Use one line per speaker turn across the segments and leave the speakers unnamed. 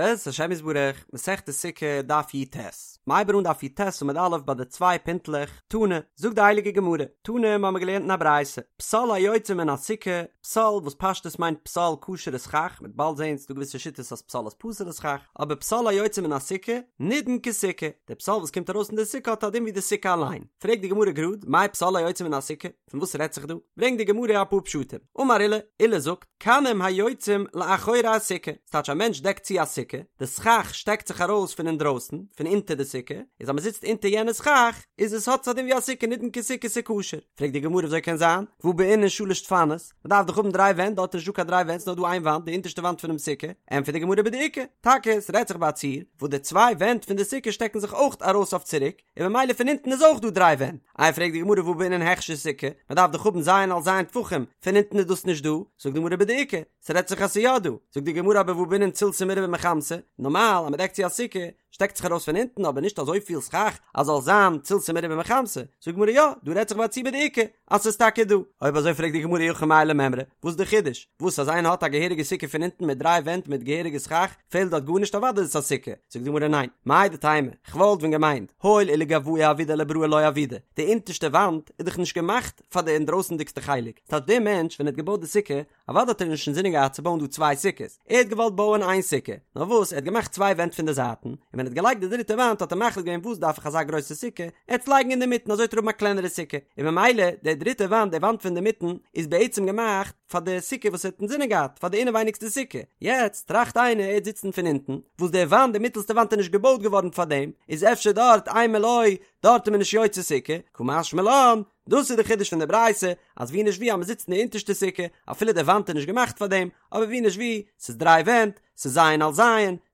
בעזרת השם יתברך, מסכת סוכה, דף י"ט. מ'הייבט אן דף י"ט עמוד א' ביי די צוויי פינטלעך, תנא, זאגט די הייליגע גמרא, תנא מ'האמיר געלערנט אין א ברייתא, פסל היוצא מן הסוכה, פסל וואס פשטות מיינט פסל כשר'ע סכך, מ'וועט באלד זען ס'דא געוויסע שיטות אז פסל איז פסול'ע סכך, אבער פסל היוצא מן הסוכה, נידון כסוכה, די פסל וואס קומט ארויס פון די סוכה האט א דין ווי די סוכה אליין. פרעגט די גמרא גראד, מאי פסל היוצא מן הסוכה? פון וואס רעדט זיך דא? ברענגט די גמרא אפאר פשטים. אמר עולא, עולא זאגט, קנים היוצאים לאחורי הסוכה, ס'טייטש א מענטש דעקט צו א סוכה, די סכך שטעקט זיך ארויס פון אינדרויסן, פון אונטער די סוכה, איז אז מ'זיצט אונטער יענע סכך, איז עס האט עס א דין ווי א סוכה נידון כסוכה ס'כשר. פרעגט די גמרא וויאזוי קען זיין? והא בעינן שלש דפנות, מ'דארף דאך האבן דריי ווענט, דארט איז נישטא קיין דריי ווענט ס'נאר דא איין וואנט, די אונטערשטע וואנט פונעם סוכה, ענטפערט די גמרא בדאיכא, טאקע ס'רעדט זיך ביי א ציור, וואס די צוויי ווענט פון די סוכה שטעקן זיך אויך ארויס אויף צוריק, און ממילא פון אונטן איז אויך דא דריי ווענט. איי פרעגט די גמרא והא בעינן הכשר סוכה, מען דארף דאך האבן ז' על ז' טפחים, פון אונטן איז דאס נישט דא, זאגט די גמרא בדאיכא, ס'רעדט זיך אז ס'איז יא דא, זאגט די גמרא אבער והא בעינן צילתא מרובה מחמתא, נארמאל אז מען דעקט צו א סוכה, שטעקט זיך ארויס פון אונטן אבער נישט אזויפיל סכך אז זאל זיין צילתא מרובה מחמתא, זאגט די גמרא יא, דא רעדט זיך ביי א ציור בדאיכא, אז ס'איז טאקע דא. אויב אזוי פרעגט די גמרא אי הכי מאי למימרא, וואס איז די חידוש? וואס אז איינער האט א געהעריגע סוכה פון אונטן מיט דריי ווענט מיט געהעריגע סכך, פעלט דארט גארנישט אוודאי איז עס א סוכה. זאגט די גמרא ניין, מהו דתימא, כ'וואלט ווען געמיינט, הואיל ולגואי עבידא לבראי לא עבידא, די אונטערשטע וואנט איז דאך נישט געמאכט פאר די אינדרויסענדיגסטע חלק, ס'טייטש דער מענטש ווען ער האט געבויט די סוכה, אוודאי האט ער נישט אינזינען געהאט צו בויען דא צוויי סוכות, ער האט געוואלט בויען איין סוכה, נאר וואס ער האט געמאכט צוויי ווענט פון די זייטן, און ווען ער האט געלייגט די דריטע וואנט האט ער מחליט געווען וואס דארף איך אזא גרויסע סוכה, ער וועט עס לייגן אינדערמיטן אזוי וועט ער האבן א קלענערע סוכה, און ממילא די דריטע וואנט, די וואנט פון אינדערמיטן, איז בעצם געמאכט פאר די סוכה וואס ער האט אינזינען געהאט, פאר די אינעווייניגסטע סוכה, יעצט טראכט איינער ער וועט זיצן פון אונטן, וואס די וואנט, די מיטעלסטע וואנט איז נישט געבויט געווארן פאר דעם, איז אפשר דארט אימא לא, דארט איז מען נישט יוצא סוכה, קא משמע לן, דאס איז די חידוש פון די ברייתא, אז ווי נישט ווי אז מען זיצט אין די אונטערשטע סוכה, אפילו די וואנט איז נישט געמאכט פאר דעם, אבער ווי נישט ווי, ס'איז דריי ווענט, ס'איז ז' על ז',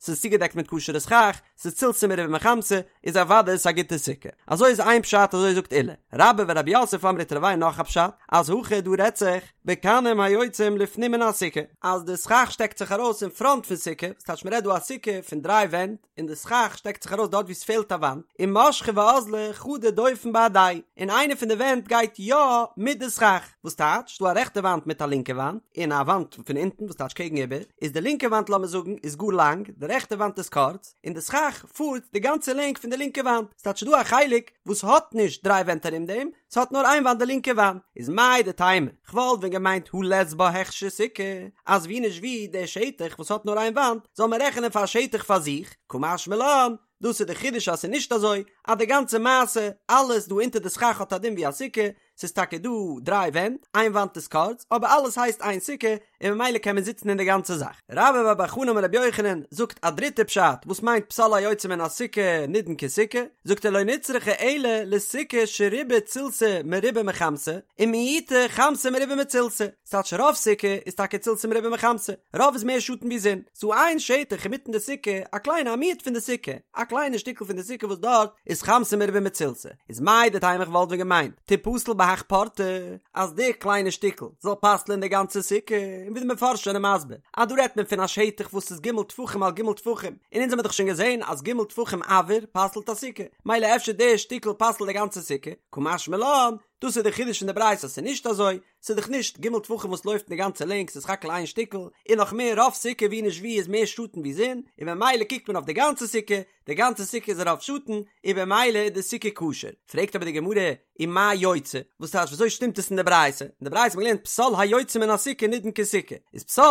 ס'איז צוגעדעקט מיט כשר'ע סכך, ס'איז צילתא מרובה מחמתא, איז אוודאי עס א גוטע סוכה. אזוי איז איין פשט אזוי זאגט עולא. רבה ורב יוסף אמרי תרוייהו נאך א פשט, אז הכא דא רעדט זיך בקנים היוצאים לפנים מן הסוכה, אז די סכך שטעקט זיך ארויס אין פראנט פון סוכה, ס'טייטש מ'רעדט דא א סוכה פון דריי ווענט, און די סכך שטעקט זיך ארויס דארט וואו ס'פעלט א וואנט, ומשכא ואזלא חדא דופן בהדייהו, און איינע פון די ווענט גייט יא מיט די סכך, וואס טייטש, ס'דא א רעכטע וואנט מיט א לינקע וואנט, און א וואנט פון אונטן וואס טייטש קעגן איבער, איז די לינקע וואנט לאמיר זאגן איז גאר לאנג, די רעכטע וואנט איז קורץ, און די סכך פארט די גאנצע לענג פון די לינקע וואנט, ס'טייטש ס'דא א חלק וואס האט נישט דריי ווענט ארום דעם, ס'האט נאר איין וואנט די לינקע וואנט, איז מהו דתימא, כ'וואלט ווען געמיינט הא לית בה הכשר סוכה, אז ווי נישט ווי דער שטח וואס האט נאר איין וואנט זאל מען רעכענען פאר א שטח פאר זיך, קא משמע לן, דאס איז די חידוש אז ס'איז נישט אזוי, אז די גאנצע מעשה, אלעס דא אונטער די סכך האט א דין ווי א סוכה, ס'איז טאקע דא דריי ווענט, איין וואנט איז קורץ, אבער אלעס הייסט איין סוכה, און ממילא קען מען זיצן אין די גאנצע זאך. רבה בר בר חנה אמר רבי יוחנן זאגט א דריטע פשט וואס מיינט פסל היוצא מן הסוכה נידון כסוכה, זאגט ער לא נצרכה אלא לסוכה שרובה צילתא מרובה מחמתא, ומיעוטה חמתא מרובה מצילתא, ס'טייטש רוב סוכה איז טאקע צילתא מרובה מחמתא, רוב איז מער שאטן ווי זון, ס'דא איין שטח אינמיטן די סוכה, א קליינע א מיעוט פון די סוכה, א קליינע שטיקל פון די סוכה וואס דארט איז חמתא מרובה מצילתא, איז מהו דתימא איך וואלט ווען געמיינט תיפסל בהך פורתא, אז די קליינע שטיקל זאל פסל'ען די גאנצע סוכה, און ווי די מפרשים זענען מסביר אז דא רעדט מען פון א שטח וואס איז ג' טפחים על ג' טפחים, און אונז האמיר דאך שוין געזען אז ג' טפחים אויר פסל'ט א סוכה, מילא אפשר די שטיקל פסל'ט די גאנצע סוכה, קא משמע לן, דאס איז די חידוש פון די ברייתא אז ס'איז נישט אזוי, ס'איז דאך נישט ג' טפחים וואס לויפט אין די גאנצע לענג ס'איז סך הכל איין שטיקל, און נאך מער רוב סוכה ווי נישט ווי איז מער שאטן ווי זון, און במילא קוקט מען אויף די גאנצע סוכה, די גאנצע סוכה איז רוב שאטן, און במילא איז די סוכה כשר. פרעגט אבער די גמרא, ומאי יוצא? וואס טייטש וויאזוי שטימט עס אין די ברייתא? אין די ברייתא האט מען געלערנט פסל היוצא מן הסוכה נידון כסוכה. איז פסל,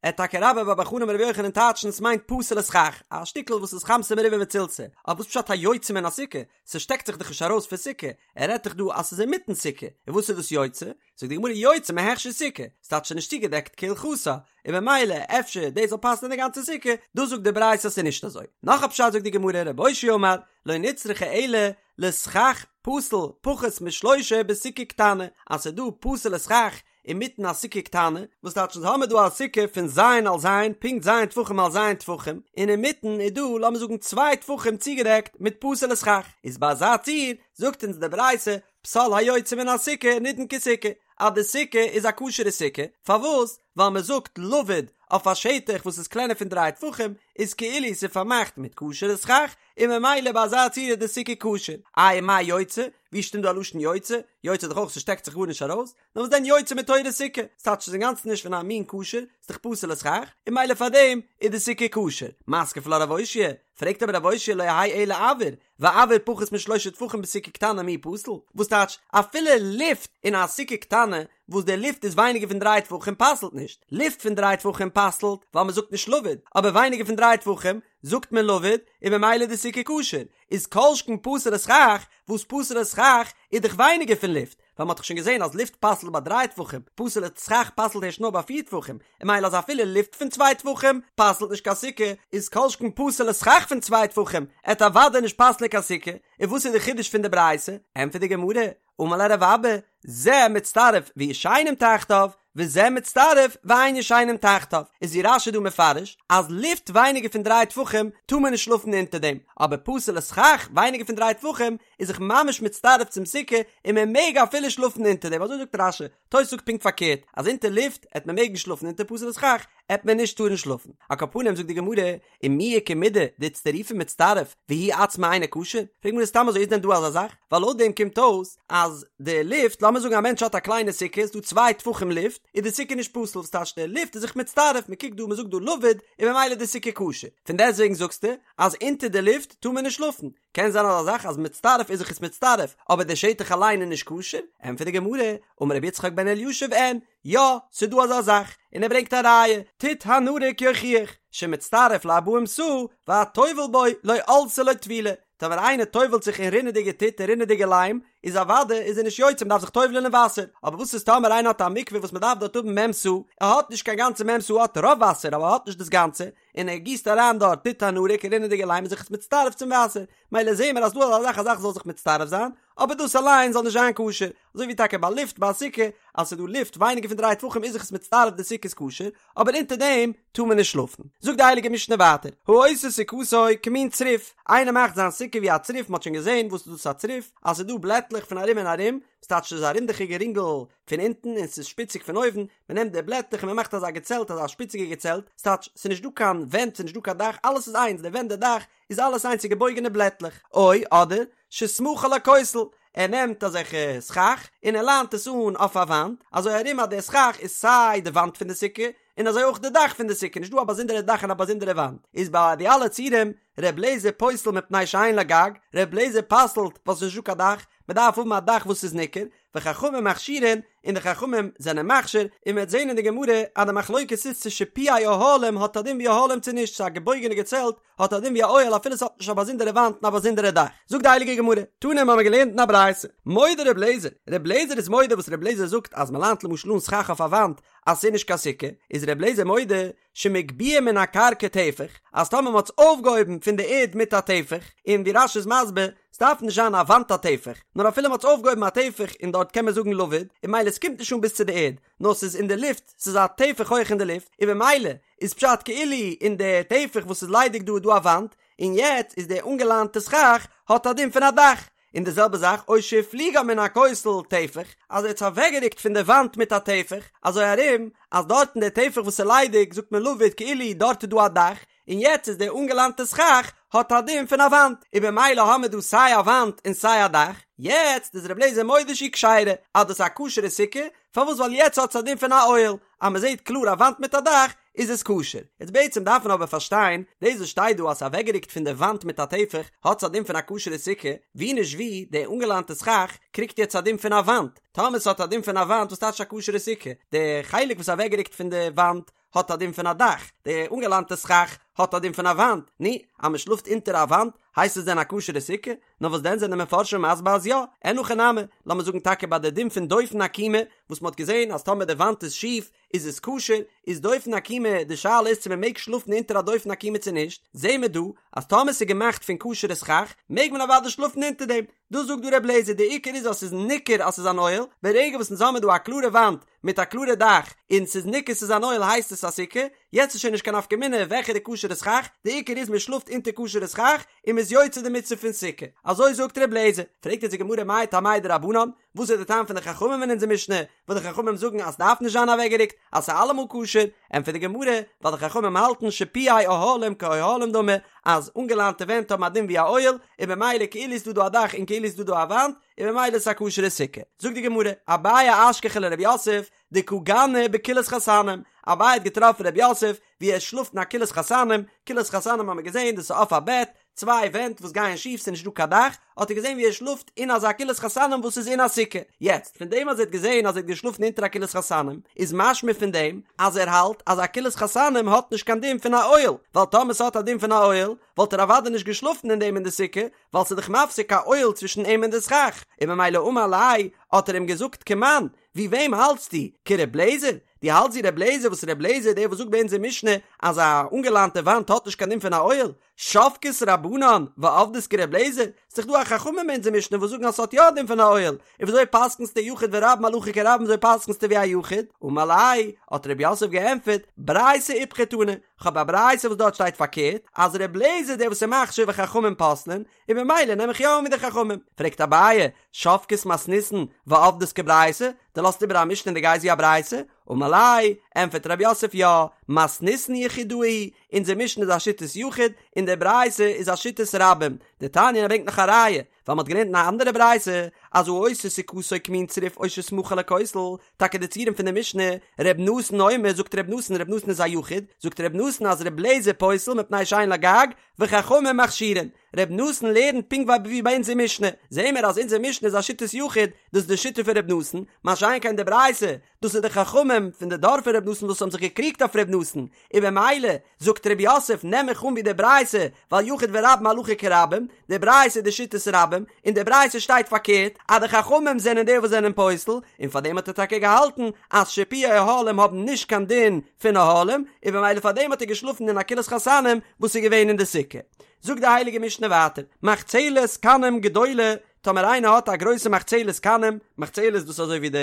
עט טאקע רבה בר בר חנה אמר רבי יוחנן טייטשן ס'מיינט פסול'ע סכך, א שטיקל וואס איז חמתא מרובה מצילתא. אבער וואס פשט היוצא מן הסוכה? ס'שטעקט זיך דאך נישט ארויס פון סוכה, ער רעדט דאך דא אז ס'איז אינמיטן סוכה, און וואס איז דאס יוצא? זאגט די גמרא יוצא מהכשר סוכה, ס'טייטש ס'איז נישט צוגעדעקט כהלכתה, און במילא אפשר דאס זאל פסל'ן די גאנצע סוכה, דאס זאגט די ברייתא אז ס'איז נישט אזוי. נאך א פשט זאגט די גמרא רב אושעיא אמר, לא נצרכה אלא לסכך פסול פחות משלושה בסוכה קטנה, אז ס'איז דא פסול'ע סכך אינמיטן א סוכה קטנה, וואס טייטש אונז האמיר דא א סוכה פון ז' על ז', פונקט ז' טפחים על ז' טפחים, און אינמיטן איז דא לאמיר זאגן צוויי טפחים צוגעדעקט מיט פסול'ע סכך, איז ביי אזא ציור זאגט אונז די ברייתא פסל היוצא מן הסוכה נידון כסוכה, אז די סוכה איז א כשר'ע סוכה, פארוואס? ווייל מען זאגט לבוד אויף א שטח וואס איז קלענער פון דריי טפחים איז כאילו ס'איז פארמאכט מיט כשר'ע סכך, און ממילא ביי אזא צורה איז די סוכה כשר. איי מאי יוצא? ווי שטימט דא א לשון יוצא? יוצא איז דאך אויך ס'שטעקט זיך גארנישט ארויס, נאר וואס דען יוצא מתורת סוכה? ס'טייטש ס'איז אינגאנצן נישט פון א מין כשר, ס'איז דאך פסול'ע סכך, און ממילא פארדעם איז די סוכה כשר. מתקיף לה רב אושעיא, פרעגט אבער רב אושעיא לא יהא אלא אויר, ואויר פחות משלושה טפחים בסוכה קטנה מי פסיל? וואס טייטש אפילו לופט אין א סוכה קטנה וואס די לופט איז ווייניגער פון דריי טפחים פסל'ט נישט, לופט פון דריי טפחים פסל'ט ווייל מ'זאגט נישט לבוד, אבער ווייניגער פון דריי טפחים זאגט מען לבוד און ממילא איז די סוכה כשר, איז כל שכן פסול'ע סכך, וואס פסול'ע סכך איז דאך ווייניגער פון לופט, ווייל מ'האט דאך שוין געזען אז לופט פסל'ט ביי דריי טפחים, פסול'ע סכך פסל'ט הערשט נאר ביי פיר טפחים, און ממילא אז אפילו לופט פון צוויי טפחים פסל'ט נישט קיין סוכה, איז כל שכן פסול'ע סכך פון צוויי טפחים עט אוודאי נישט פסל'ען קיין סוכה, און וואס איז די חידוש פון די ברייתא? ענטפערט די גמרא, אמר ליה רב אבא, זה מצטרף וישנים תחתיו, וזה מצטרף ואין ישנים תחתיו, איז ווי רש"י דא מפרש אז לופט ווייניגער פון דריי טפחים טאר מען נישט שלאפן אונטער דעם, אבער פסול'ע סכך ווייניגער פון דריי טפחים איז זיך ממש מצטרף צום סוכה און מען מעג אפילו שלאפן אונטער דעם, אזוי זאגט רש"י, תוס' זאגט פונקט פארקערט אז אונטער לופט עט מען מעגן שלאפן אונטער פסול'ע סכך עט מען נישט טארן שלאפן, על כל פנים זאגט די גמרא ומי איכא מידי דאיצטרופי מצטרף והוא עצמו אינו כשר? פרעגט די גמרא סתם אזוי איז דען דא אזא זאך? ווייל לויט דעם קומט אויס אז די לופט, לאמיר זאגן א מענטש האט א קליינע סוכה איז דא צוויי טפחים לופט, איז די סוכה נישט פסול, וואס טייטש די לופט איז זיך מצטרף, מען קוקט דא מען זאגט דא לבוד און ממילא איז די סוכה כשר, פון דעסטוועגן זאגסטו אז אונטער די לופט טאר מען נישט שלאפן, קען זיין אזא זאך אז מצטרף איז זיך עס מצטרף אבער די שטח אליין איז נישט כשר? ענטפערט די גמרא, אמר רבי יצחק בן אלישיב אין, יא, ס'דא אזא זאך, און ער ברענגט א ראיה, טיט הנרוק יוכיח, שמצטרף לארבעים סאה, והטובל בו לא עלתה לו טבילה, טאמער איינער טובל'ט זיך אין רינעדיגע טיט אין רינעדיגע ליים, איז אוודאי איז ער נישט יוצא מ'דארף זיך טובל'ען אין וואסער, אבער וואס איז טאמער איינער האט א מקווה וואס מ'דארף דארט האבן מ' סאה, ער האט נישט קיין גאנצע מ' סאה ער האט רוב וואסער אבער ער האט נישט דאס גאנצע, און ער גיסט אריין דארט טיט הנרוק רינעדיגע ליים איז זיך עס מצטרף צום וואסער, מילא זעהן מיר אז דא אזא זאך א זאך זאל זיך מצטרף זיין, אבער דאס אליין זאל נישט זיין כשר, אזוי ווי טאקע ביי לופט ביי א סוכה, אז ס'איז דא לופט ווייניגער פון דריי טפחים איז זיך עס מצטרף די סוכה איז כשר, אבער אונטער דעם טאר מען נישט שלאפן. זאגט די הייליגע משנה ווייטער, העושה סוכתו כמין צריף, איינער מאכט זיין סוכה ווי א צריף, מ'האט שוין געזען וואס איז דאס א צריף, אז ס'איז דא בלעטלעך פון ארום און ארום, ס'טייטש ס'איז א רינדעכיגע רינגל פון אונטן און ס'איז שפיציג פון אויבן, מ'נעמט די בלעטלעך און מ'מאכט אזא געצעלט אזא שפיציגע געצעלט, ס'טייטש ס'איז נישט דא קיין ווענט ס'איז נישט דא קיין דאך אלעס איז איינס די ווענט די דאך איז אלעס איינס ס'איז געבויגענע בלעטלעך, או אדער שסמכה לכותל, ער נעמט אזעלכע סכך און ער ליינט עס אן אויף א וואנט, אזוי ארום אז די סכך איז סיי די וואנט פון די סוכה און אזוי אויך די דאך פון די סוכה, נישט דא א באזונדערע דאך און א באזונדערע וואנט, איז ביי די אלע ציורים ר' לעזער פוסל מפני שאין לה גג, ר' לעזער פסל'ט ווייל ס'איז נישט דא קיין דאך, מ'דארף האבן א דאך וואס איז ניכר, וחכמים מכשירין, און די חכמים זענען מכשיר, און מ'וועט זען אין די גמרא אז די מחלוקת איז צו שיפועי אוהלים האט א דין ווי אוהלים צו נישט, צו א געבויגענע געצעלט האט א דין ווי א אוהל אפילו ס'האט נישט א באזונדערע וואנט און א באזונדערע דאך. זאגט די הייליגע גמרא, תנא האבן מיר געלערנט אין א ברייתא, מודה ר' לעזער, ר' לעזער איז מודה וואס ר' לעזער זאגט אז מ'ליינט למשל אן סכך אויף א וואנט אז ס'איז נישט קיין סוכה, איז ר' לעזער מודה שמגביה מן הקרקע טפח, אז טאמער מ'האט עס אויפגעהויבן פון די ערד מיט א טפח, און ווי רש"י איז מסביר, ס'דארף נישט זיין א וואנט א טפח, נאר אפילו מ'האט עס אויפגעהויבן א טפח און דארט קען מען זאגן לבוד, און ממילא ס'קומט נישט אן ביז צו די ערד, נאר ס'איז אין די לופט, ס'איז א טפח הויך אין די לופט, און במילא איז פשט כאילו אין די טפח וואס איז ליידיג דא איז דא א וואנט, און יעצט איז די אנגעליינטע סכך האט א דין פון א דאך, און די זעלבע זאך או שהפליגה מן הכותל טפח, אז ער האט עס אוועקגערוקט פון די וואנט מיט א טפח, אזוי ארום אז דארט אין די טפח וואס איז ליידיג זאגט מען לבוד כאילו דארט איז דא א דאך, און יעצט איז די אנגעליינטע סכך האט א דין פון א וואנט, און במילא האמער דא סיי א וואנט און סיי א דאך, יעצט איז ר' לעזער מודה שהיא כשרה, אז דאס איז א כשר'ע סוכה, פארוואס ווייל יעצט האט עס א דין פון א אוהל, אז מען זעט קלאר א וואנט מיט א דאך איז עס כשר. יעצט בעצם דארף מען אבער פארשטיין, דאס וואס שטייט דא אז ס'איז אוועקגערוקט פון די וואנט מיט א טפח האט עס א דין פון א כשר'ע סוכה, ווי נישט ווי, די אנגעליינטע סכך קריגט יעצט א דין פון א וואנט, טאמער ס'האט א דין פון א וואנט וואס טייטש א כשר'ע סוכה? די חלק וואס איז אוועקגערוקט פון די וואנט האט א דין פון א דאך, די אנגעליינטע סכך האט א דין פון א וואנט, נו, אז מען שלאפט אונטער א וואנט הייסט עס דען א כשר'ע סוכה? נאר וואס דען זענען די מפרשים מסביר אז יא, אין הכי נמי, לאמיר זאגן טאקע ביי די דין פון דופן עקומה, וואס מען האט געזען אז טאמער די וואנט איז שיף איז עס כשר, איז דופן עקומה, די שאלה איז צו מען מעג שלאפן אונטער א דופן עקומה צו נישט, זעהן מיר דא אז טאמער ס'איז געמאכט פון כשר'ע סכך מעג מען אוודאי שלאפן אונטער דעם, דאס זאגט דא ר' לעזער, די עיקר איז אז ס'איז ניכר אז ס'איז אן אוהל, ברגע וואס אונז האמיר דא א קלארע וואנט. מיט א קלארע דאך און ס'איז ניכר ס'איז אן אוהל הייסט עס א סוכה, יעצט איז שוין נישט קיין נפקא מינה וועלכע די כשר'ע סכך, די עיקר איז מען שלאפט אונטער כשר'ע סכך און מ'איז יוצא די מצוה פון סוכה, אזוי זאגט ר' לעזער, פרעגט אונז די גמרא מאי טעמייהו דרבנן, וואס איז די טעם פון די חכמים אין אונזער משנה, וואס די חכמים זאגן אז ס'דארף נישט זיין אוועקגערוקט, אז ס'איז אלעמאל כשר, ענטפערט די גמרא, ווייל די חכמים האלטן שיפועי אוהלים כאוהלים דמי, אז אנגעליינטע ווענט האבן א דין ווי א אוהל, און במילא כאילו איז דא דא א דאך און כאילו איז דא דא א וואנט, און במילא איז עס א כשר'ע סוכה. זאגט די גמרא, אביי אשכחיה לרב יוסף, דקא גני בכילת חתנים, אביי האט געטראפן רב יוסף ווי ער שלאפט אין א כילת חתנים, כילת חתנים האט מען געזען דאס איז אויף א בעט, צוויי ווענט וואס גייען שיף ס'איז נישט דא קיין דאך, האט ער געזען ווי ער שלאפט אין אזא כילת חתנים וואס איז אין א סוכה, יעצט פון דעם אז ער האט געזען אז ער האט געשלאפן אונטער א כילת חתנים איז משמע פון דעם אז ער האלט אז א כילת חתנים האט נישט קיין דין פון א אוהל, ווייל טאמער ס'האט א דין פון א אוהל וואלט ער אוודאי נישט געשלאפן אין דעם אין די סוכה, ווייל ס'איז דאך מפסיק א אוהל צווישן אים און די סכך, און ממילא אמר ליה האט ער אים געזאגט כמאן, ווי וועם האלטסטו? כר' לעזער? דו האלטסט ווי ר' לעזער וואס ר' לעזער דער וואס זאגט ביי אונזער משנה אז א אנגעליינטע וואנט האט נישט קיין דין פון א אוהל? שבקת רבנן ועבדת כר' לעזער? ס'איז דאך דא א חכמים אין אונזער משנה וואס זאגן אז ס'האט יא א דין פון א אוהל, און וויאזוי פסק'נסטו יחיד ורבים הלכה כרבים וויאזוי פסק'נסטו ווי א יחיד? אמר ליה, האט ר' יוסף געענטפערט, ברייתא איפכא תנא, כ'האב א ברייתא וואס דארט שטייט פארקערט, אז ר' לעזער דער וואס איז מכשיר וחכמים פוסלין, און ממילא נעם איך יא אן ווי די חכמים. פרעגט אביי, שבקת מתניתין ועבדת כברייתא, דו לאזט איבער א משנה און דו גייסט ווי א ברייתא? אמר ליה, ענטפערט רב יוסף יא, מתניתין יחידאה היא, אונזער משנה איז א שיטת יחיד, און די ברייתא איז א שיטת רבים. דתניא ער ברענגט נאך א ראיה, ווייל מ'האט געלערנט אין א אנדערע ברייתא, אז העושה סוכתו כמין צריף או שסמכה לכותל, טאקע די ציורים פון די משנה, ר' נתן אומר, זאגט ר' נתן, ר' נתן איז א יחיד, זאגט ר' נתן אז ר' לעזער פוסל מפני שאין לו גג, וחכמים מכשירין. ר' נתן לערנט פונקט ווי ביי אונזער משנה, זעהן מיר אז אונזער משנה איז א שיטת יחיד, דאס איז די שיטה פון ר' נתן, מה שאין כן די ברייתא, דאס איז די חכמים פון די דור פון ר' נתן וואס האבן זיך געקריגט אויף ר' נתן, און במילא זאגט ר' יוסף נעם איך אן ווי די ברייתא, ווייל יחיד ורבים הלכה כרבים, די ברייתא איז די שיטת רבים, אין די ברייתא שטייט פארקערט אז די חכמים זענען די וואס זענען פוסל, און פארדעם האט ער טאקע געהאלטן אז שיפועי אוהלים האבן נישט קיין דין פון אוהלים, און במילא פארדעם האט ער געשלאפן אין א כילת חתנים וואס איז געווען אין די סוכה. זאגט די הייליגע משנה ווייטער, מחצלת קנים גדולה, טאמער איינער האט א גרויסע מחצלת קנים, מחצלת דאס איז אזוי ווי די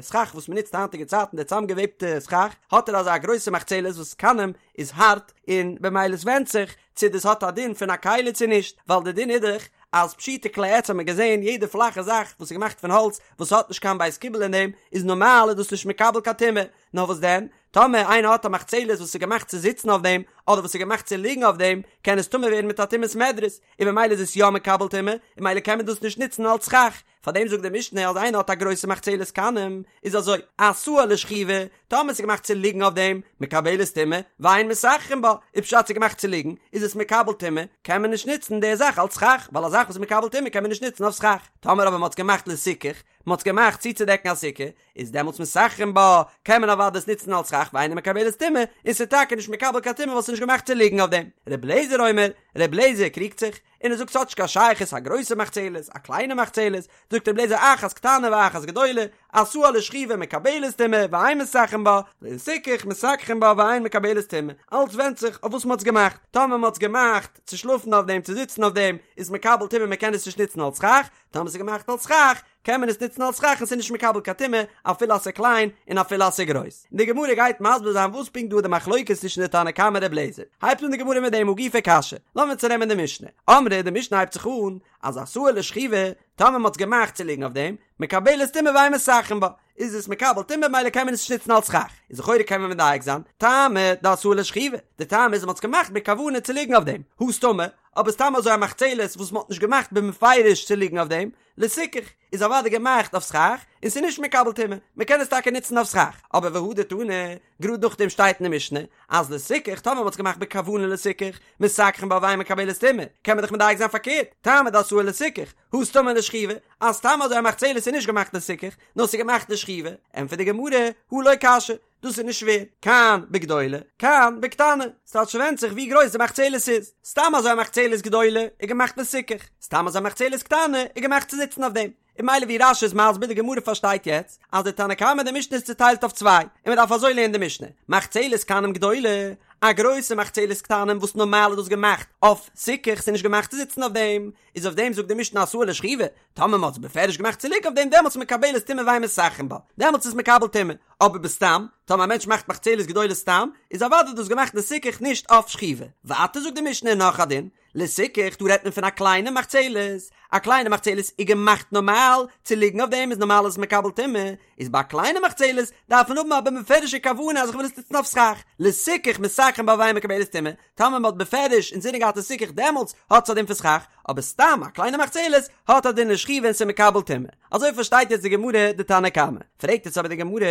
סכך וואס מען נוצט היינטיגע צייטן די צאמגעוועבטע סכך, האט ער אזא גרויסע מחצלת וואס קנים איז הארט, און במילא עס ווענדט זיך צו דאס האט א דין פון א כלי צו נישט, ווייל די דין איז דאך אז פשוטי כלי עץ האט מען געזען יעדע פלאכע זאך וואס איז געמאכט פון האלץ וואס האט נישט קיין בית קיבול אין דעם איז נארמאל איז דאס נישט מקבל קיין טומאה, נאר וואס דען טאמער איינער האט א מחצלת וואס איז געמאכט צו זיצן אויף דעם, אדער וואס איז געמאכט צו ליגן אויף דעם, קען עס טמא ווערן מיט א טומאת מדרס, און ממילא איז עס יא מקבל טומאה, און ממילא קען מען דאס נישט נוצן אלס סכך. פארדעם זאגט די משנה אז איינער האט א גרויסע מחצלת קנים, איז אזוי, עשאה לשכיבה, טאמער עס איז געמאכט צו ליגן אויף דעם, מקבלת טומאה, ואין מסככין בה, איז פשט ס'איז געמאכט צו ליגן, איז עס מקבל טומאה, קען מען נישט נוצן די זאך אלס סכך, ווייל א זאך וואס איז מקבל טומאה קען מען נישט נוצן אויף סכך. טאמער אבער מען האט עס געמאכט לסיכוך, מען האט עס געמאכט צוצודעקן א סוכה, איז דעמאלטס מסככין בה, קען מען אוודאי עס נוצן אלס סכך ואינה מקבלת טומאה, און ס'איז טאקע נישט מקבל קיין טומאה ווייל ס'איז נישט געמאכט צו ליגן אויף דעם. ר' לעזער אומר, ר' לעזער קריגט זיך, און ער זאגט ס'האט נישט קיין שייכות א גרויסע מחצלת, א קליינע מחצלת, זאגט ר' לעזער אחת קטנה ואחת גדולה, עשאה לשכיבה מקבלת טומאה ואין מסככין בה, לסיכוך מסככין בה ואין מקבלת טומאה, אלץ ווענדט זיך אויף וואס מ'האט עס געמאכט, טאמער מ'האט עס געמאכט צו שלאפן אויף דעם צו זיצן אויף דעם, איז מקבל טומאה מ'קען עס נישט נוצן אלס סכך, טאמער ס'איז געמאכט אלס סכך, קען מען עס נוצן אלס סכך און ס'איז נישט מקבל קיין טומאה אפילו אז ס'איז קליין און אפילו אז ס'איז גרויס. און די גמרא גייט מסביר זיין וואס פונקט דא איז די מחלוקת צווישן די תנא קמא און ר' לעזער. הייבט אן די גמרא מיט דעם הא גופא קשיא. לאמיר צונעמען די משנה. אמרי די משנה הייבט זיך אן אז עשאה לשכיבה, טאמער מ'האט עס געמאכט צו ליגן אויף דעם, מקבלת טומאה ואין מסככין בה, איז עס מקבל טומאה ממילא קען מען עס נישט נוצן אלס סכך. איז לכאורה קען מען מדייק זיין, טעמא דעשאה לשכיבה, די טעם איז אז מ'האט עס געמאכט בכוונה צו ליגן אויף דעם, הא סתמא, אבער סתם אזוי א מחצלת וואס מ'האט נישט געמאכט במפורש צו ליגן אויף דעם, לסיכוך, איז אוודאי געמאכט אויף סכך, און ס'איז נישט מקבל טומאה, מ'קען עס טאקע נוצן אויף סכך, אבער והדר תני, גראד נאכדעם שטייט אין די משנה, אז לסיכוך, טאמער מ'האט עס געמאכט בכוונה לסיכוך, מסככין בה ואין מקבלת טומאה, קען מען דאך מדייק זיין פארקערט, טעמא דעשאה לסיכוך, הא סתמא לשכיבה, אז סתם אזוי א מחצלת איז נישט געמאכט לסיכוך, נאר ס'איז געמאכט לשכיבה, ענטפערט די גמרא, הא לא קשיא, דאס איז נישט שווער, כאן בגדולה, כאן בקטנה, ס'טייטש ס'ווענדט זיך ווי גרויס די מחצלת איז, סתם אזוי א מחצלת גדולה איז געמאכט לסיכוך, סתם אזוי א מחצלת קטנה איז געמאכט צו זיצן אויף דעם, און ממילא ווי רש"י איז מסביר די גמרא פארשטייט יעצט אז די תנא קמא די משנה איז צוטיילט אויף צוויי, און מען דארף אזוי לערנען די משנה, מחצלת קנים גדולה, א גרויסע מחצלת קטנים וואס נארמאל איז דאס געמאכט אויף סיכוך ס'איז נישט געמאכט צו זיצן אויף דעם, איז אויף דעם זאגט די משנה עשאה לשכיבה, טאמער מ'האט עס בפירוש געמאכט צו ליגן אויף דעם דעמאלטס איז מקבלת טומאה ואין מסככין בה, דעמאלטס איז מקבל טומאה, אבער בסתם, טאמער א מענטש מאכט מחצלת גדולה סתם, איז אוודאי דאס געמאכט לסיכוך נישט אויף שכיבה. ווייטער זאגט די משנה נאך א דין, לסיכוך, דא רעדט מען פון א קליינע מחצלת, א קליינע מחצלת איז געמאכט נארמאל צו ליגן אויף דעם איז נארמאל איז עס מקבל טומאה, איז ביי א קליינע מחצלת דארף מען האבן א בפירוש'ע כוונה אז איך וויל עס נוצן אויף סכך, לסיכוך מסככין בה ואינה מקבלת טומאה, טאמער מען האט בפירוש אינזינען געהאט לסיכוך דעמאלטס האט עס א דין פון סכך, אבער סתם א קליינע מחצלת האט א דין לשכיבה און ס'איז מקבל טומאה. אזוי פארשטייט יעצט די גמרא די תנא קמא. פרעגט יעצט אבער די גמרא,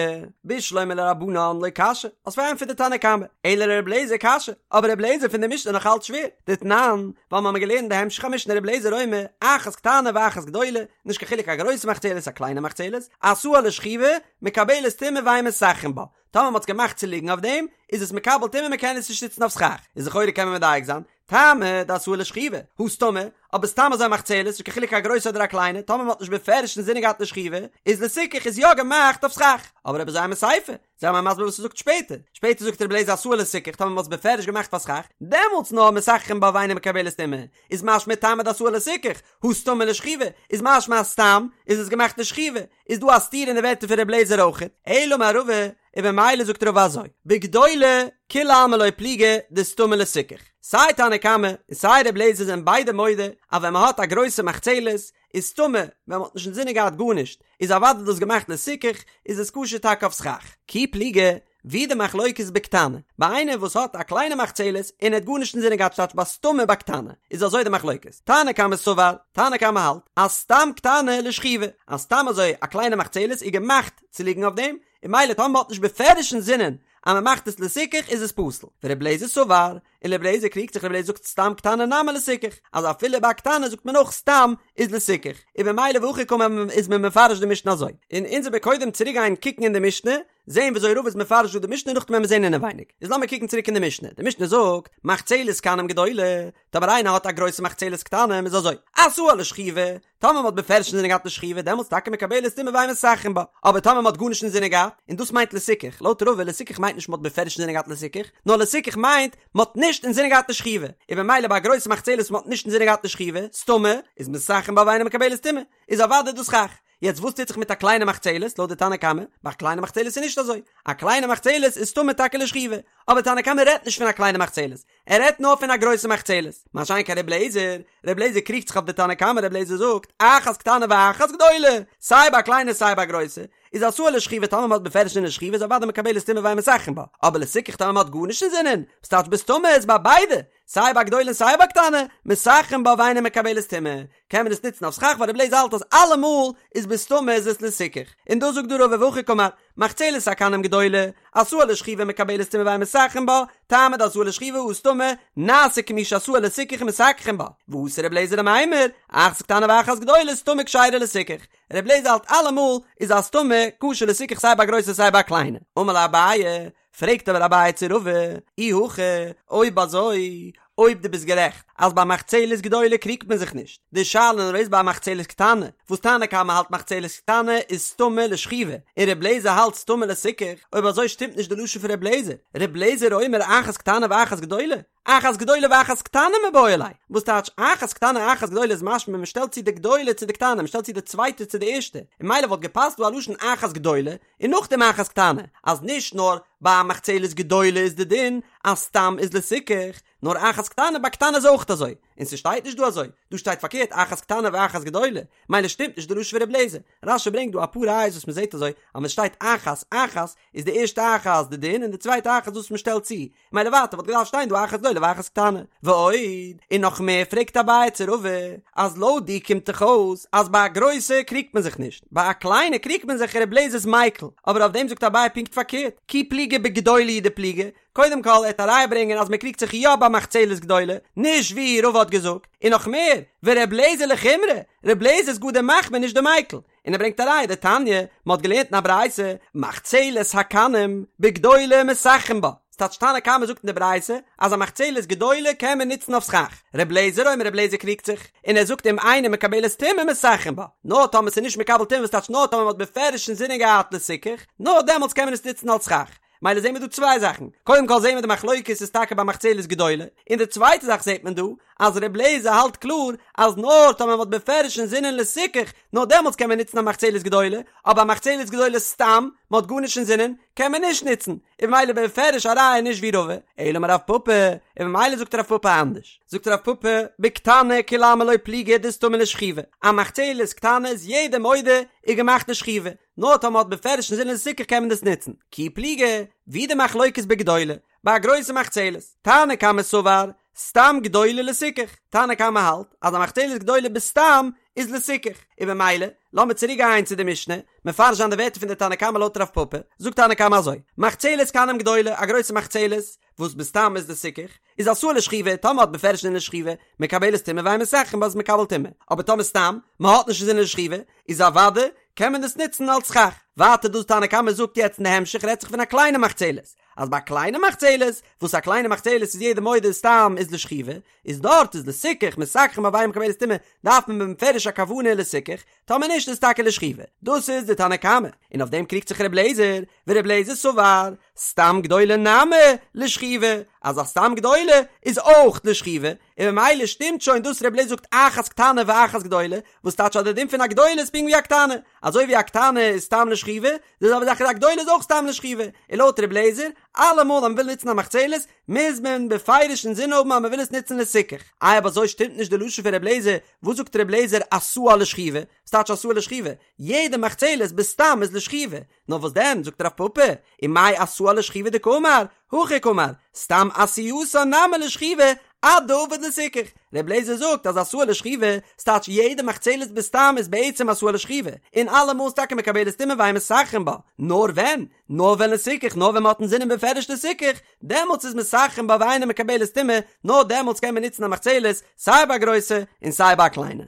בשלמא לרבנן לא קשיא, האסט פארענטפערט די תנא קמא, אלא לר' אליעזר קשיא, אבער ר' אליעזר פון די משנה נאך אלץ שווער, דתנן, ווייל מ'האמיר געלערנט די המשך המשנה ר' אליעזר אומר, אחת קטנה ואחת גדולה, נישט קיין חילוק א גרויסע מחצלת א קליינע מחצלת, עשאה לשכיבה, מקבלת טומאה ואין מסככין בה, טאמער מ'האט עס געמאכט צו ליגן אויף דעם, איז עס מקבל טומאה מ'קען עס נישט נוצן אויף סכך, איז לכאורה קען מען מדייק זיין, טעמא דעשאה לשכיבה, הא סתמא, אבער סתם אזוי מחצלת, נישט קיין חילוק א גרויסע אדער א קליינע, טאמער מ'האט נישט בפירוש אינזינען געהאט לשכיבה, איז לסיכוך איז יא געמאכט אויף סכך. אבער אויב אזוי אימא סיפא, זיי מיר מסביר וואס ס'זאגט שפעטער. שפעטער זאגט רבי אליעזר עשאה לסיכוך, טאמער מ'האט עס בפירוש געמאכט פאר סכך, דעמאלטס נאר מסככין בה ואינה מקבלת טומאה, איז משמע טעמא דעשאה לסיכוך, הא סתמא לשכיבה, איז משמע אז סתם איז עס געמאכט לשכיבה, איז דא א סתירה אין די ווערטער פון רבי אליעזר אויכעט. אלא אמר רבא, און במילא זאגט רבא אזוי, בגדולה כולי עלמא לא פליגי דסתמא לסיכוך, סיי תנא קמא און סיי ר' אליעזר זענען ביידע מודה אז ווען מען האט א גרויסע מחצלת איז סתמא, ווען מען האט נישט אינזינען געהאט גארנישט איז אוודאי דאס געמאכט לסיכוך, איז עס כשר טאקע אויף סכך. כי פליגי, ווי די מחלוקת בקטנה, ביי איינער וואס האט א קליינע מחצלת און ער האט גארנישט אינזינען געהאט ס'טייטש ביי סתמא בקטנה, איז אזוי די מחלוקת, תנא קמא סבר, תנא קמא האלט אז סתם קטנה לשכיבה, אז סתם אזוי א קליינע מחצלת איז געמאכט צו ליגן אויף דעם, און ממילא טאמער מ'האט נישט בפירוש אינזינען אז מ'מאכט עס לסיכוך איז עס פסול. ור' אליעזר סבר, און ר' אליעזר קריגט זיך ר' אליעזר זאגט סתם קטנה נמי לסיכוך, אז אפילו ביי א קטנה זאגט מען אויך סתם איז לסיכוך, און במילא והכי קאמר איז מען מפרש די משנה אזוי. און אונז וועמיר קודם צוריק גיין קוקן אין די משנה, זעהן וויאזוי רבא איז מפרש דא די משנה נאכדעם וועמיר זעהן אינעווייניג. איז לאמיר קוקן צוריק אין די משנה, די משנה זאגט, מחצלת קנים גדולה, טאמער איינער האט א גרויסע מחצלת קטנים איז אזוי, עשאה לשכיבה, טאמער מען האט בפירוש אינזינען געהאט לשכיבה דעמאלטס טאקע מקבלת טומאה ואין מסככין בה, אבער טאמער מען האט גארנישט אינזינען געהאט, און דאס מיינט לסיכוך, לויט רבא לסיכוך מיינט נישט מען האט בפירוש אינזינען געהאט לסיכוך, נאר לסיכוך מיינט מען האט נישט אינזינען געהאט לשכיבה, און במילא ביי א גרויסע מחצלת מען האט נישט אינזינען געהאט לשכיבה, סתמא, איז מסככין בה ואינה מקבלת טומאה, איז אוודאי דאס סכך. יעצט וואס טוט זיך מיט א קליינע מחצלת, לויט די תנא קמא, ביי א קליינע מחצלת איז נישט אזוי, א קליינע מחצלת איז סתמא טאקע לשכיבה, אבער תנא קמא רעדט נישט פון א קליינע מחצלת, ער רעדט נאר פון א גרויסע מחצלת, מה שאין כן ר' אליעזר, ר' אליעזר קריגט זיך אויף די תנא קמא, ר' אליעזר זאגט, אחת קטנה ואחת גדולה, סיי ביי א קליינע סיי ביי א גרויסע, איז עשאה לשכיבה טאמער מ'האט בפירוש אינזין לשכיבה איז אוודאי מקבלת טומאה ואין מסככין בה, אבער לסיכוך טאמער מ'האט גארנישט אינזינען, וואס טייטש בסתמא איז ביי ביידע, סיי ביי גדולה און סיי ביי קטנה, מסככין בה ואינה מקבלת טומאה, קען מען עס נוצן אויף סכך ווייל ר' אליעזר האלט אז אלעמאל איז בסתמא איז עס לסיכוך, און דאס זאגט דא רבא והכי קאמר, מחצלת הקנים גדולה, עשאה לשכיבה מקבלת טומאה ואין מסככין בה, טעמא דעשאה לשכיבה הא סתמא, נעשה כמי שעשאה לסיכוך ומסככין בה, ואתא ר' אליעזר למימר, אחת קטנה ואחת גדולה סתמא כשרה לסיכוך, ר' אליעזר האלט אלעמאל איז א סתמא כשר לסיכוך סיי ביי גרויסע סיי ביי קליינע, אמר ליה אביי, פרעגט אבער אביי צו רבא, אי הכי, אויב אזוי, אויב דו ביסט גערעכט אז ביי מחצלת גדולה קריגט מען זיך נישט, די שאלה נאר איז ביי מחצלת קטנה, וואס תנא קמא האלט מחצלת קטנה איז סתמא לשכיבה, און ר' לעזער האלט סתמא לסיכוך, אויב אזוי שטימט נישט די לשון פון ר' לעזער, ר' לעזער אומר אחת קטנה ואחת גדולה, אחת גדולה ואחת קטנה מיבעי ליה, וואס טייטש אחת קטנה אחת גדולה איז משמע מען שטעלט צו די גדולה צו די קטנה, מען שטעלט צו די צווייטע צו די ערשטע, און ממילא וואלט געפאסט דא א לשון אחת גדולה, און נאכדעם אחת קטנה, אז נישט נאר ביי א מחצלת גדולה איז די דין אז סתם איז לסיכוך, נאר אחת קטנה ביי קטנה איז אויך אזוי, און ס'שטייט נישט דא אזוי, דא שטייט פארקערט אחת קטנה ואחת גדולה, מילא שטימט נישט די לשון פון ר' לעזער, רש"י ברענגט דא אפאר ראיות וואס מ'זעט אזוי, אז ווען ס'שטייט אחת אחת איז די ערשטע אחת די דין און די צווייטע אחת וואס מ'שטעלט צו, מילא ווייטער וואלט געדארפט שטיין דא אחת גדולה ואחת קטנה. ועוד, און נאך מער פרעגט אביי צו רבא, אז לויט דיר קומט דאך אויס אז ביי א גרויסע קריגט מען זיך נישט, ביי א קליינע קריגט מען זיך ר' לעזער איז מיקל, אבער אויף דעם זאגט אביי פונקט פארקערט, כי פליגי בגדולה הוא דפליגי, קודם כל ער וועט א ראיה ברענגען אז מען קריגט זיך יא ביי מחצלת גדולה, נישט ווי רבא האט געזאגט, און נאך מער, ור' לעזער לחומרא, ר' לעזער איז גאר דער מחמיר נישט דער מיקל, און ער ברענגט א ראיה דתניא, מען האט געלערנט אין א ברייתא, מחצלת הקנים בגדולה מסככין בה, ס'טייטש תנא קמא זאגט אין די ברייתא אז א מחצלת גדולה קען מען נוצן אויף סכך, ר' לעזער אומר ר' לעזער קריגט זיך, און ער זאגט אם אינה מקבלת טומאה מסככין בה, נאר טאמער ס'איז נישט מקבל טומאה וואס טייטש נאר טאמער מען האט בפירוש אינזינען געהאט לסיכוך, נאר דעמאלטס קען מען עס נוצן אלס סכך. מילא זעהן מיר דא צוויי זאכן, קודם כל זעהן מיר די מחלוקת איז טאקע ביי מחצלת גדולה, און די צווייטע זאך זעהט מען דא, אז ר' לעזער האלט קלאר אז נאר טאמער מ'האט בפירוש אינזינען לסיכוך, נאר דעמאלטס קען מען נוצן א מחצלת גדולה, אבער א מחצלת גדולה סתם, מ'האט גארנישט אינזינען, קען מען נישט נוצן, און ממילא בפירוש א ראיה נישט ווי רבא, אלא אמר רב פפא, און ממילא זאגט רב פפא אנדערש, זאגט רב פפא, בקטנה כולי עלמא לא פליגי דסתמא לשכיבה, א מחצלת קטנה איז יעדער מודה איז געמאכט לשכיבה, נאר טאמער מ'האט בפירוש אינזינען לסיכוך קען מען דאס נוצן, כי פליגי, ווי די מחלוקת בגדולה, ביי א גרויסע מחצלת, תנא קמא סבר, סתם גדולה לסיכוך, תנא קמא האלט אז א מחצלת גדולה בסתם איז לסיכוך, און במילא, לאמיר צוריק גיין צו די משנה, מפרש זיין די ווערטער פון די תנא קמא לויט רב פפא, זאגט תנא קמא אזוי, מחצלת קנים גדולה, א גרויסע מחצלת, וואס בסתם איז לסיכוך, איז עשאה לשכיבה, טאמער מ'האט בפירוש אינזין לשכיבה, מקבלת טומאה ואין מסככין בה איז מקבל טומאה, אבער טאמער סתם, מען האט נישט אינזין לשכיבה, איז אוודאי קען מען דאס נוצן אלס סכך. ווייטער דאס תנא קמא זאגט יעצט אין די המשך רעדט זיך פון א קליינע מחצלת, אז ביי א קליינע מחצלת, וואס א קליינע מחצלת איז יעדער מודה סתם איז לשכיבה, איז דארט איז לסיכוך, מסככין בה ואינה מקבלת טומאה, דארף מען בפירוש א כוונה לסיכוך, טאמער נישט איז טאקע לשכיבה. דאס איז די תנא קמא, און אויף דעם קריגט זיך ר' לעזער, ור' לעזער סבר, סתם גדולה נמי לשכיבה, אז א סתם גדולה איז אויך לשכיבה, און ממילא שטימט שוין דאס ר' לעזער זאגט אחת קטנה ואחת גדולה, וואס טייטש אז די דין פון א גדולה איז פונקט ווי א קטנה, אזוי ווי א קטנה איז סתם לשכיבה, די זעלבע זאך איז א גדולה איז אויך סתם לשכיבה, און לויט ר' לעזער, אלעמאל אז מען וויל נוצן א מחצלת, מוז מען בפירוש אינזין האבן אז מען וויל עס נוצן לסיכוך. איי אויב אזוי שטימט נישט די לשון פון ר' לעזער, וואס זאגט ר' לעזער עשאה לשכיבה? וואס טייטש עשאה לשכיבה? יעדע מחצלת בסתם איז לשכיבה, נאר וואס דען, זאגט רב פפא, ומאי עשאה לשכיבה דקאמר, הכי קאמר, סתם עשייתה נמי לשכיבה, עד דעביד לסיכוך. ר' לעזער זאגט אז עשאה לשכיבה, ס'טייטש יעדע מחצלת בסתם איז בעצם עשאה לשכיבה, און אלעמאל איז טאקע מקבלת טומאה ואין מסככין בה, נאר ווען? נאר ווען לסיכוך, נאר ווען מ'האט אינזינען בפירוש לסיכוך, דעמאלטס איז מסככין בה ואינה מקבלת טומאה, נאר דעמאלטס קען מען נוצן א מחצלת, סיי ביי א גרויסע און סיי ביי א קליינע.